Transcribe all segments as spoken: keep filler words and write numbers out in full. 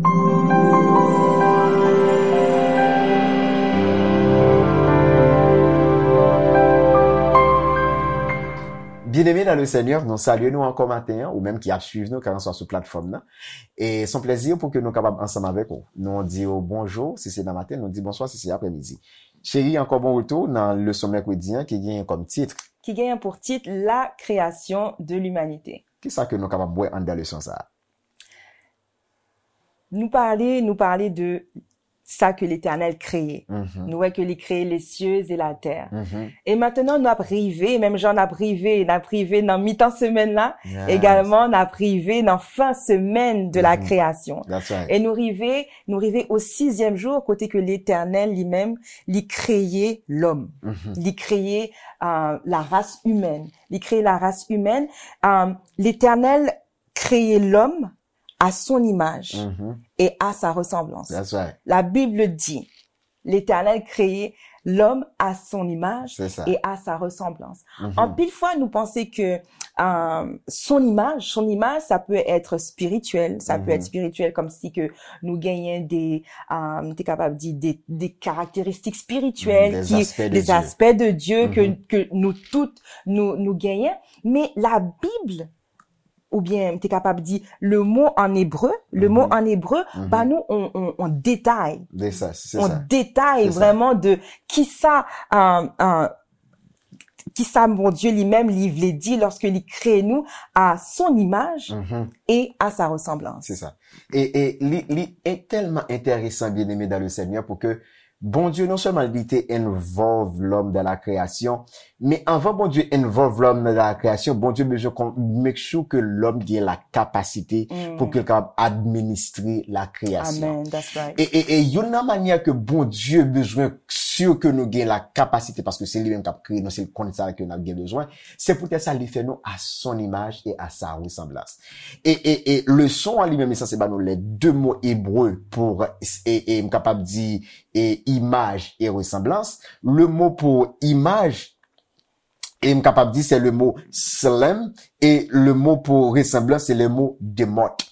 Byeneme nan le Senyè, nou salye nou ankò maten an, ou menm ki ap swiv nou, kèlkanswa sou platfòm nan. E se yon plèzi pou ke nou kapab ansanm avèk ou. Nou di w bonjou, si se nan maten, nou di bonswa, si se aprèmidi. Cheri, ankò bon retou nan leson mèkredi an ki genyen kòm tit. Ki genyen pou tit La création de l'humanité. Kisa ke nou kapab wè anndan leson sa a? Nou pale, nou pale de sa ke Letènèl kreye. Nou wè ke li kreye les cieux et la terre. E maintenant, nou ap rive, menm jan n ap rive, n ap rive nan mitan semèn la, egalman, n ap rive nan fen semèn de la création. E nou rive, nou rive au sixième jour, kote ke Letènèl li menm, li kreye lòm. Li kreye, euh, la race humaine. Li kreye la race humaine. Euh, Letènèl kreye lòm à son image et à sa ressemblance. La Bible dit, L'Éternel créa l'homme à son image et à sa ressemblance. Anpil fwa, nou panse ke, euh, son image, son image, ça peut être spirituel, ça peut être spirituel, comme si que nou genyen de, euh, te kapab di de, de karakteristik spirityèl, des aspects de Dieu ke, ke nou tout, nou, nou genyen. Men la Bible oubyen m te kapab di le mot en hébreu, le mot en hébreu ba nou on, on, on detay. On detay vrèman de kisa, euh, euh, kisa Bondye li menm li vle di lòske li kreye nou à son image et à sa ressemblance. Se sa. E, e li, li tèlman enteresan, byeneme dans le Seigneur, pou ke Bondye non sèlman li te involve lòm dans la création, men anvan Bondye involve lòm dans la création, Bondye bezwen kon, make sure ke lòm gen la kapasite pou ke l kapab administre la création. E, e, e youn nan manyè ke Bondye bezwen sure ke nou gen la kapasite, paske se li menm k ap kreye nou, se l konn sa ke n ap gen bezwen, se poutèt sa li fè nou à son image et à sa ressemblance. E, e, e leson an li menm, li sanse ba nou les deux mots hébreux pour, e, e m kapab di, e imaj e resanblans. Le mo pou imaj, e m kapab di, se le mo tselem, e le mo pou resanblans, se le mo demot.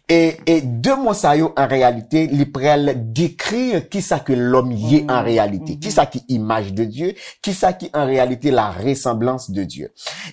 E, e de mo sa yo, an reyalite, li pral dekri kisa ke lòm ye an reyalite, kisa ki imaj de Dye, kisa ki an reyalite la ressemblance de Dieu.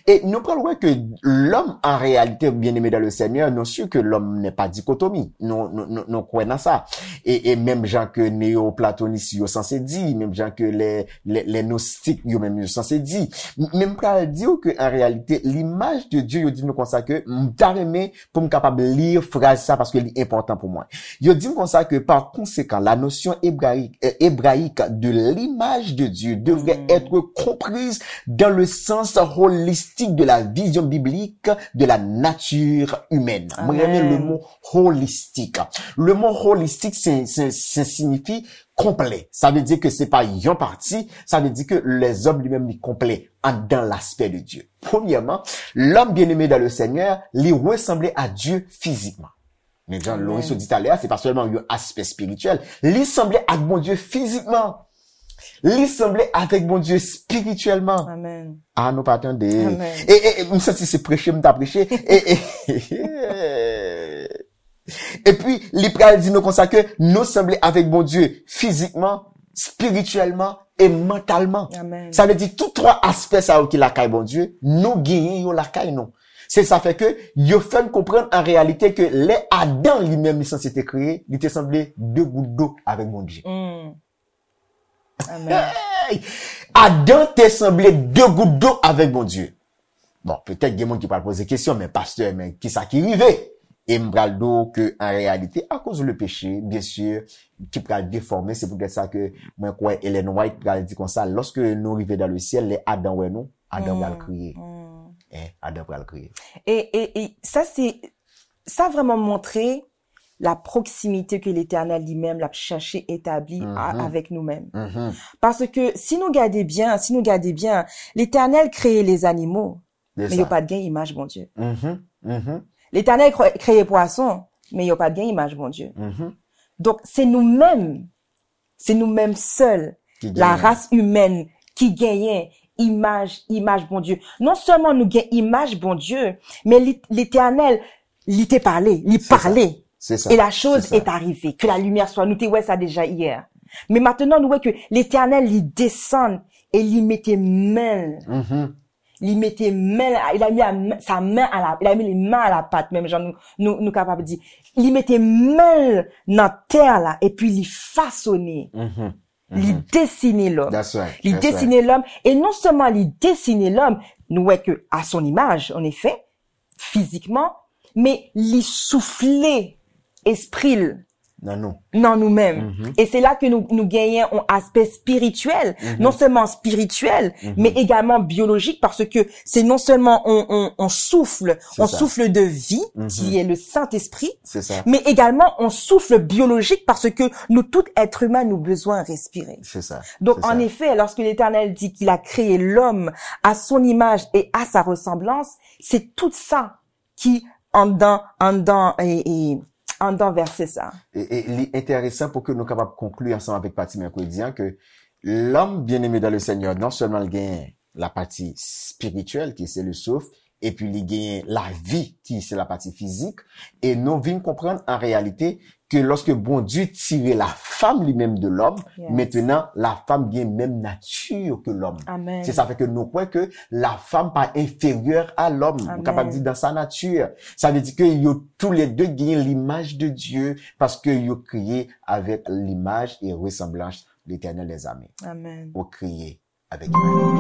E nou pral wè ke lòm, an reyalite, byeneme dans le Seigneur, nou si ke lòm n'est pas dichotomie. Nou, nou, nou, nou kwè nan sa. E, e menm jan ke neyoplatonis yo sanse di, menm jan ke lè, lè, lè nostik yo menm yo sanse di. M, men m pral di w ke an reyalite, l'image de Dieu, yo di nou konsa ke m ta renmen pou m kapab li fraz sa paske li enpòtan pou mwen. Yo di m konsa ke par conséquent, la notion hébraïque, euh, hébraïque de l'image de Dieu devrait être comprise dans le sens holistique de la vision biblique de la nature humaine. Mwen renmen le mot holistique. Le mot holistique, se, se, se siyifi konplè. Sa vle di ke se pa yon pati, sa vle di ke lèzòm li menm li konplè anndan l'aspect de Dieu. Premyèman, l'homme bien-aimé dans le Seigneur, li resanble a Dye fizikman. Men jan Loris di talè a, se pa sèlman yon aspè espirityèl. Li sanble ak Bondye fizikman. Li sanble avèk Bondye espirityèlman. A, nou pa tande. E, e, e, m santi se preche m ta preche. E, e, epi, li pral di nou konsa ke nou sanble avèk Bondye fizikman, espirityèlman e mantalman. Sa vle di tout twa aspè sa yo ki lakay Bondye, nou genyen yo lakay nou. Se sa fè ke yo fè n konprann an reyalite ke lè Adan li menm li sanse te kreye, li te sanble de gout dlo avèk Bondye. Adan te sanble de gout dlo avèk Bondye. Bon, petèt gen moun ki pral poze kesyon, men pastè, men kisa ki rive? E m pral di w ke an reyalite, akoz le péché, byen si, ki pral defòme, se poutèt sa ke mwen kwè Ellen White pral di konsa, lòske nou rive dans le ciel, lè Adan wè nou, Adan pral kriye. Hein, Adan pral kriye. E, e, e sa se, sa vrèman montre la proximité que Letènèl li menm l ap chèche etabli a, avèk nou menm. Paske si nou gade byen, si nou gade byen, Letènèl kreye lezanimo, men yo pa t gen imaj Bondye. Letènèl kre-, kreye pwason, men yo pa t gen imaj Bondye. Donk, se nou menm, se nou menm sèl, la race humaine, ki genyen imaj, imaj Bondye. Non sèlman nou gen imaj Bondye, men li, Letènèl, li te pale, li pale. C'est ça. Et la chose est arrivée, que la lumière soit. Nou te wè sa deja yè. Men maintenant, nou wè ke Letènèl, li desann e li mete men l. Li mete men l, il a mis la main- sa men a la, il a mis les mains à la pâte, menm jan nou, nou, nou kapab di. Li mete men l nan tè la, epi li fasone. Li desine lòm. Li desine lòm. E non sèlman li desine lòm, nou wè ke à son image, en effet, fizikman, men li soufle espri l nan nou menm. E se la ke nou, nou genyen yon aspè spirityèl, non sèlman spirityèl, men egalman biyolojik, paske se non sèlman yon, yon, yon souf, yon souf de vi, ki est le Saint-Esprit, men egalman yon souf biyolojik, paske nou tout èt imen, nou bezwen respire. Donk, an efè, lòske Letènèl di ke li kreye lòm à son image et à sa ressemblance, se tout sa ki anndan, anndan, e, e, anndan vèsè sa. E, e li enteresan pou ke nou kapab konkli ansanm avèk pati mèkredi an ke lòm bien-aimé dans le Seigneur, non sèlman l gen la pati spirityèl, ki se le souf, epi li genyen lavi, ki se la pati fizik, e nou vin konprann an reyalite ke lòske Bondye tire la femme li menm de l'homme, maintenant la femme gen menm nati ke lòm. Se sa fè ke nou kwè ke la femme pa enférieure à l'homme. Nou kapab di dans sa nature. Sa vle di ke yo tou lè de genyen l'image de Dieu, paske yo kreye avèk l'image et ressemblance de l'Éternel des armées. Ou kreye avèk imaj.